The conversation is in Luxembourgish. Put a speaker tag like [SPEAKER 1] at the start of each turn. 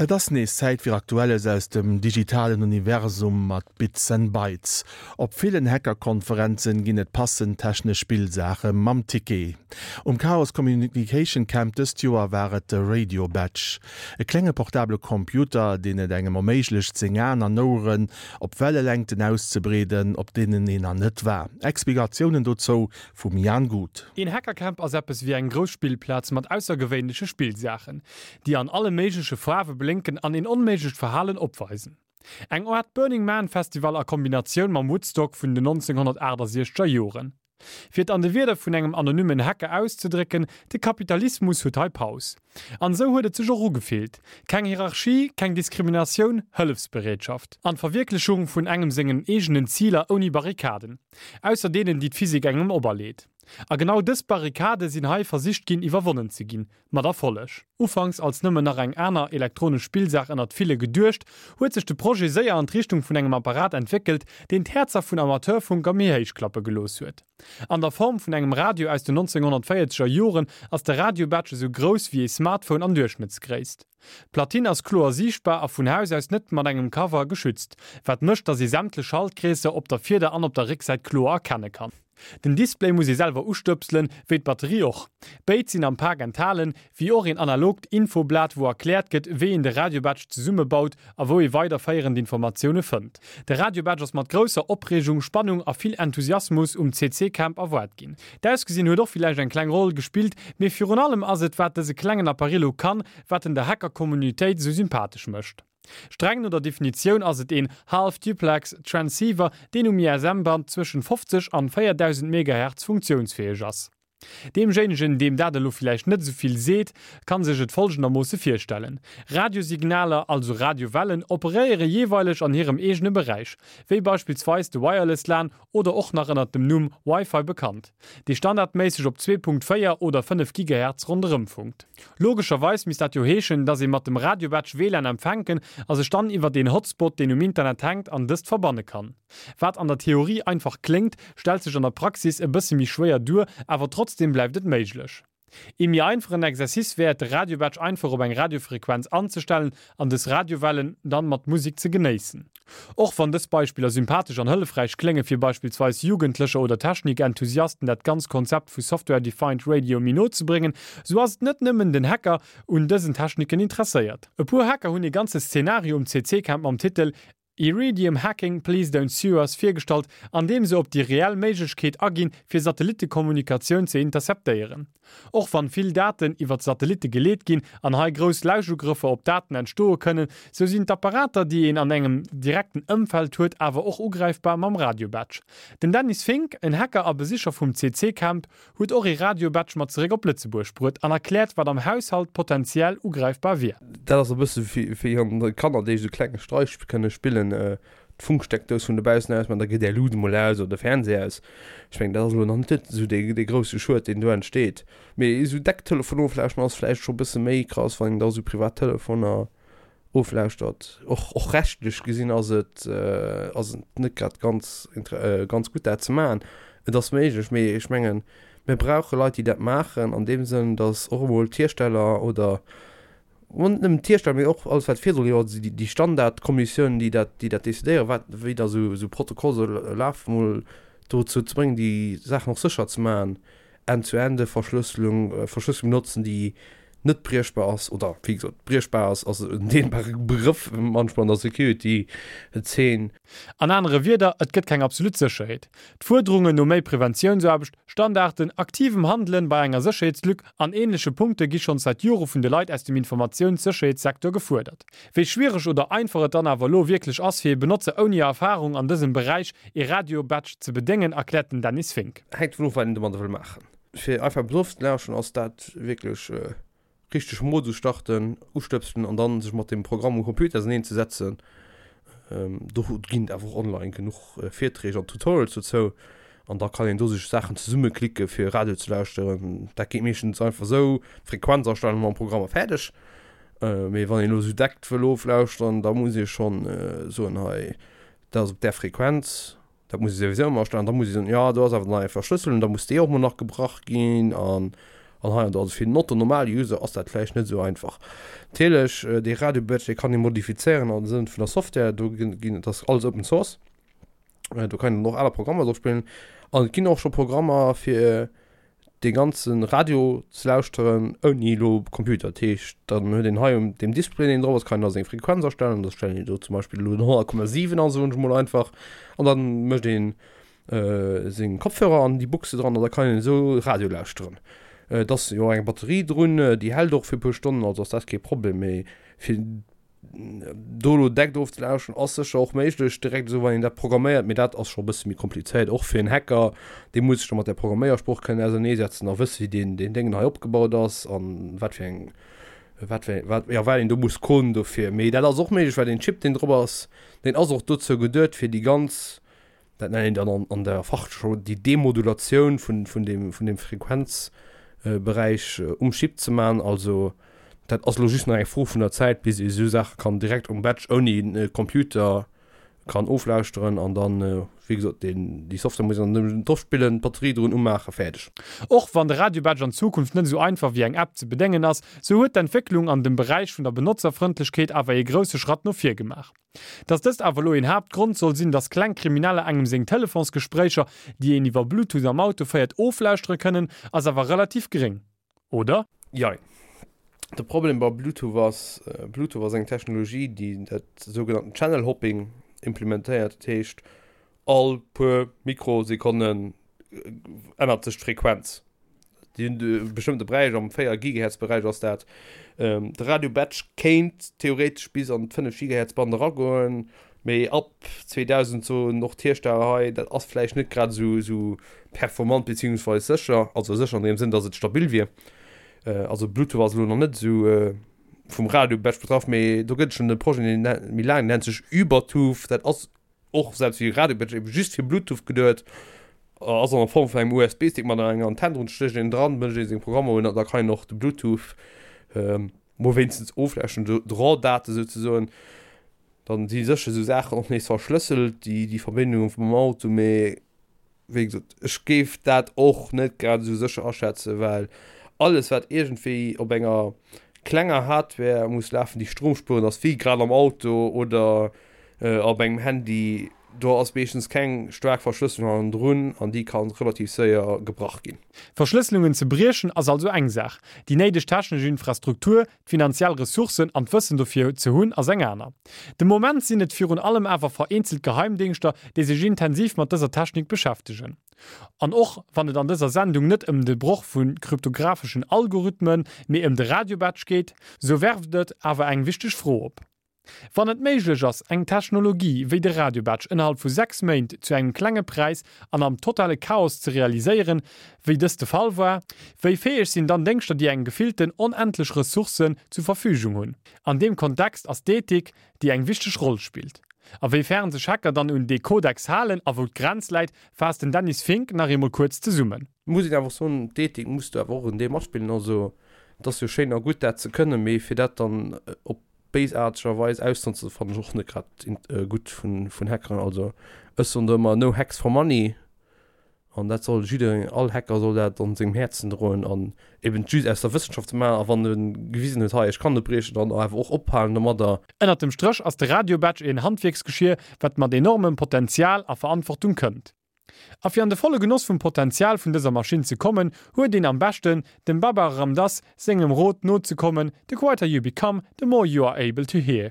[SPEAKER 1] Et ass nees Zäit fir Aktuelles aus dem digitalen Universum mat Bits and Bytes. Op villen Hackerkonferenzen ginn et passend technesch Spillsaache mam Ticket. Um Chaos Communication Camp dëst Joer war et de Radio Badge, e klenge portabele Computer, deen et engem erméiglecht seng Aen an Oueren op Wellelängten auszebreeden, op deenen een nach net war. Explikatiounen dozou vum Jan Guth.
[SPEAKER 2] Een Hackercamp ass eppes wéi eng grouss Spillplaz mat aussergewéinleche Spillsaachen, déi an alle méigleche Faarwe blénken an een onméiglecht Verhalen opweisen. Eng Aart Burning Man Festival a Kombinatioun mam Woodstock vun den 1968 er Joren. Fir et an de Wierder vun engem anonymmen Hacker auszedrécken, De Kapitalismus huet hei Paus. An esou huet et sech och ugefillt. Keng Hierarchie, keng Diskriminatioun, Hëllefsbereetschaft. An d'Verwierklechung vun engem sengen eegenen Ziler ouni Barrikaden. Ausser deenen, déi d'Physik engem operleet. A genau dës Barrikade sinn hei versicht ginn iwwerwonnen ze ginn. Mat Erfolleg. Ufanks als nëmmen nach eng aner elektronesch Spillsaach ënnert ville geduecht, huet sech de Projet séier an d'Richtung vun engem Apparat entwéckelt, deen d'Häerzer vun Amateurfunker méi héich klappe gelooss huet. An der Form vun engem Radio aus den 1940er Joren ass de Radio-Badge esou grouss wéi ee Smartphone an Duerchschnëttsgréisst. D'Platine ass kloer siichtbar a vun Haus aus net mat engem Cover geschützt, wat mécht, dass ee sämtlech Schaltkreesser op der Virder an op der Récksäit kloer erkenne kann. Den Display muss ee selwer ustëpselen, wéi d'Batterie och. Béid sinn am Pak enthalen, wéi och een analogt Infoblat wou erkläert gëtt, wéi een de Radiobadge zesummebaut a wou ee weiderféierend Informatioune fënnt. De Radiobadge ass mat grousser Opreegung, Spannung a vill Enthusiasmus um CC Camp erwaart ginn. D'Ausgesinn huet och villäicht eng kleng Roll gespillt, mee virun allem ass et wat dëse klengen Apparillo kann, wat en der Hacker-Communitéit esou sympathesch mécht. Streng no der Definitioun ass et een Half-Duplex Transceiver, deen um ISM-Band zwëschen 50 an 4000 Megahertz funktiounsfäeg ass. Deemjéinegen, deem dat elo villäicht net esou vill seet, kann sech et folgendermoosse virstellen, Radiosignaler, also Radiowellen, operéiere jeeweileg an hirem eegene Beräich, wéi beispillsweis de Wireless lan oder och nach ënnert dem Numm Wi-Fi bekannt, dee standardméisseg op 2.4 oder 5 Gigahertz ronderëm funkt. Logescherweis misst dat jo heeschen, dass ee mat dem Radiobadge WLAN empfänken a sech dann iwwert een Hotspot, deen um Internet hänkt, an dëst verbanne kann. Wat an der Theorie einfach kléngt, stellt sech an der Praxis e bësse méi schwéier duer, awer trotzdeem bleift et méiglech. Ee méi einfachen Exercice wär et de Radiobadge einfach op eng Radiofrequenz anzestellen an dës Radiowellen dann mat Musik ze genéissen. Och wann dës Beispiller sympathesch an hëllefräich klénge fir beispillsweis Jugendlecher oder Technikenthusiasten dat ganz Konzept vu Software Defined Radio méi no ze bréngen, sou ass et net nëmmen den Hacker un dësen Techniken interesséiert. E puer Hacker hunn ee ganze Szenario um CC-Camp mam Titel Iridium Hacking, Please Don't Sue Us virgestallt, an deem se op déi reell Méiglechkeet aginn, fir Satellittekommunikatioun ze interceptéieren. Och wann vill Daten iwwert Satellitte geleet ginn an hei grouss Lauschugrëffer op Daten entstoe kënnen, sou sinn d'Apparater, déi een an engem direkten Ëmfeld huet, awer och ugräifbar mam Radiobadge. Den Dennis Fink, en Hacker a Besicher vum CC-Camp, Huet och ee Radio-Badge mat zeréck op Lëtzebuerg bruet an erkläert, wat am Haushalt potentiell ugräifbar wier.
[SPEAKER 3] Dat ass e bësse wéi wann Kanner, déi esou klenge Streich kënne spillen, d'Funksteckdous vun dobaussen aus maachen, da geet är Luut emol aus oder de Fernseh aus. Ech mengen, dat ass elo nach net esou dee grousse Schued, deen do entsteet. Mee esou deck Telefon oflauschteren ass vläicht scho e bësse méi krass, wann een da esou privat Telefoner oflauschtert. Och, och rechtlech gesinn ass et, ass et net grad ganz, ganz gutt dat ze maachen. Et ass méiglech, mee ech mengen, mir brauche Leit, déi dat maachen an deem Sënn, datt och emol d'Hiersteller oder, bon, net nëmmen d'Hiersteller, mee och alles wat virdru jo, déi, déi Standardkommissioun, déi dat, déi dat decidéieren, wat, wéi da esou, esou Protokoll soll lafen, emol dozou ze bréngen, déi Saachen och sécher ze maachen. End-zu-Ende-Verschlësselung, Verschlësselung benotzen, déi net briechbar ass, oder wéi gesot, briechbar ass, ass en dehnbare Begrëff manchmal an der Security-Zeen.
[SPEAKER 2] An anere Wierder, et gëtt keng absolut Sécherheet. D'Fuerderungen no méi Preventiounsaarbecht, Standarden, aktivem Handelen bei enger Sécherheetslück an ähnleche Punkte gi schonns säit Jore vun de Leit aus dem Informatiounssécherheetssecteur gefuerdert. Wéi schwiereg oder einfach et dann awer elo wierklech ass, fir ee Benotzer ouni Erfarung an dësem Beräich ee Radio-Badge ze bedéngen, erkläert den Dennis Fink.
[SPEAKER 3] Hänkt dovun of, wat een domadder wëll maachen. Fir einfach eppes ofzelauschteren ass dat wierklech richteg Modus starten, ustëpselen an dann sech mat dem Programm um Computer auseneen ze setzen. Do ginn et awer och online genuch Virträg an Tutorials dozou an da kann een do sech Saachen zesummeklicke fir Radio ze lauschteren. Dat geet meeschtens einfach esou, Frequenz astellen mam Programm a fäerdeg. Mee wann een elo esou deckt wëll oflauschteren, da muss ee schonn soen, hei dat ass op där Frequenz, dat muss ee souwisou ëmmer astellen. Da muss ee soen, jo do ass awer nach eng Verschlësselung, da muss déi och mol nach gebrach ginn an. An hei an do. Also fir den Otto Normal User ass dat vläicht net esou einfach. Natierlech, dee Radio Badge, dee kann ee modifizéieren am Sënn vun der Software. Do ginn, dat ass alles Open Source. Do kann een dann och aner Programmer drop spillen. An et ginn och scho Programmer fir dee ganze Radio ze lauschteren ouni elo Computer. Dat heescht, dann huet een hei um deem Display, deen drop ass, kann een da seng Frequenz astellen. Da stellen een do zum Beispill elo den 100,7 an, soen ech mol einfach. An dann mécht een seng Kopfhörer an déi Buchse dran an da kann een esou Radio lauschteren. Et ass jo eng Batterie drun, déi hält och fir e puer Stonnen, also ass dat kee Problem. Mee fir do elo deckt ofzelauschteren ass sécher och méiglech, direkt esou wann een dat programméiert, mee dat ass scho e bësse méi komplizéiert, och fir en Hacker, dee muss sech da mat där Programméiersprooch kënnen auserneesetzen a wësse wéi deen deen Déngen hei opgebaut ass an wat fir eng wat fir wat jo wat een do muss coden dofir. Mee dat ass och méiglech, well deen Chip deen drop ass, deen ass och dozou geduet fir déi ganz dat nennt een dann an, an der Fachjargon déi Demodulatioun vun, vun deem, vun deem Frequenzberäich um Chip ze maachen. Also dat ass elo just nach eng Fro vun der Zäit, bis ee esou Saache kann direkt um Badge ouni Computer kann oflauschteren an dann, wéi gesot, deen, déi Software muss een dann nëmmen drop spillen, d'Batterie drun umaachen, fäerdeg.
[SPEAKER 2] Och wann de Radio-Badge an Zukunft net esou einfach wéi eng App ze bedéngen ass, sou huet d'Entwécklung an dem Beräich vun der Benotzerfrëndlechkeet awer ee grousse Schratt no vir gemaach. Dass dëst awer elo een Haaptgrond soll sinn, dass kleng Krimineller engem seng Telefonsgespréicher, déi een iwwer Bluetooth am Auto féiert, oflauschtere kënnen, ass awer relativ gréng, oder?
[SPEAKER 3] Jein. De Problem bei Bluetooth ass, Bluetooth ass eng Technologie, déi dat sougenannten Channel Hopping implementéiert. Dat heescht, all puer Mikrosekonnen ännert sech d'Frequenz. Déi hunn e bestëmmte Beräich, am 4 Gigahertz Beräich ass dat. De Radio Batch kéint theoretesch bis an d'fënnef Gigahertz Band eragoen, mee ab 2000 soen och d'Hiersteller hei, dat ass vläicht net grad esou esou performant beziehungsweis sécher, also sécher an deem Sënn, datt et stabil wier. Also Bluetooth ass elo nach net esou vum Radio Batch betraff, mee do gëtt et schonn e Projet, deen méi laang, deen nennt sech Ubertooth, dat ass och selbst wéi Radio Badge eben just fir Bluetooth geduet, ass an der Form vun engem USB-Stick mat enger Antenn drun, stécht een dran, mécht ee seng Programmer un an da kann een och de Bluetooth mol wéinstens oflauschteren, d'RAW-Date souzesoen. Dann si sécher esou Saachen och nees verschlësselt, déi déi Verbindunge vum Auto, mee wéi gesot, ech géif dat och net grad esou sécher aschätzen, well alles wat iergendwéi op enger klenger Hardware muss lafen, déi stromspuerend ass, wéi grad am Auto oder op engem Handy, do ass meeschtens keng staark Verschlësselung hannendrun an déi ka relativ séier gebrach ginn.
[SPEAKER 2] Verschlësselungen ze briechen ass also eng Saach, déi néideg technesch Infrastruktur, D'finanziell Ressourcen an d'Wëssen dofir ze hunn ass eng aner. De Moment sinn et virun allem awer vereenzelt Geheimdéngschter, déi sech intensiv mat dëser Technik beschäftegen. An och wann et an dëser Sendung net ëm de Broch vu kryptographeschen Algorithmen, mee ëm de Radiobatch geet, sou werft et awer eng wichteg Fro op. Wann et méiglech ass, eng Technologie wéi de Radiobatch ënnerhalb vu 6 Méint zu engem klenge Präis an am totale Chaos ze realiséieren, wéi dëst de Fall war, wéi fäeg sinn dann Déngschter, déi eng gefillten onendlech Ressourcen zu Verfügung hunn? An deem Kontext ass d'Ethik, déi eng wichteg Roll spillt. A wéi fern sech Hacker dann un dee Kodex halen a wou d'Grenz läit, faasst den Dennis Fink nach eemol kuerz zesummen.
[SPEAKER 3] Muss een awer och soen, d'Ethik muss do awer och en Deel matspillen. Also et ass jo schéin a gutt dat ze kënnen, mee fir dat dann op béisaartegerweis ausnotzen fannen ech och net grad gutt vun Hackeren. Also ech soen do ëmmer no hacks for money an dat soll jiddereen, all Hacker soll dat an sengem Häerzen droen an eben just aus der Wëssenschaft ze maachen a wann e gewisen huet hei ech kann net briechen dann awer och ophalen domadder.
[SPEAKER 2] Ënnert dem Stréch ass de Radiobatch een Handwierksgeschier wat mat enormem Potenzial a Verantwortung kënnt. A fir an de volle Genoss vum Potenzial vun dëser Maschinn ze kommen, huet een am beschten, dem Baba Ram Dass sengem Rot nozekommen, The quieter you become, the more you are able to hear.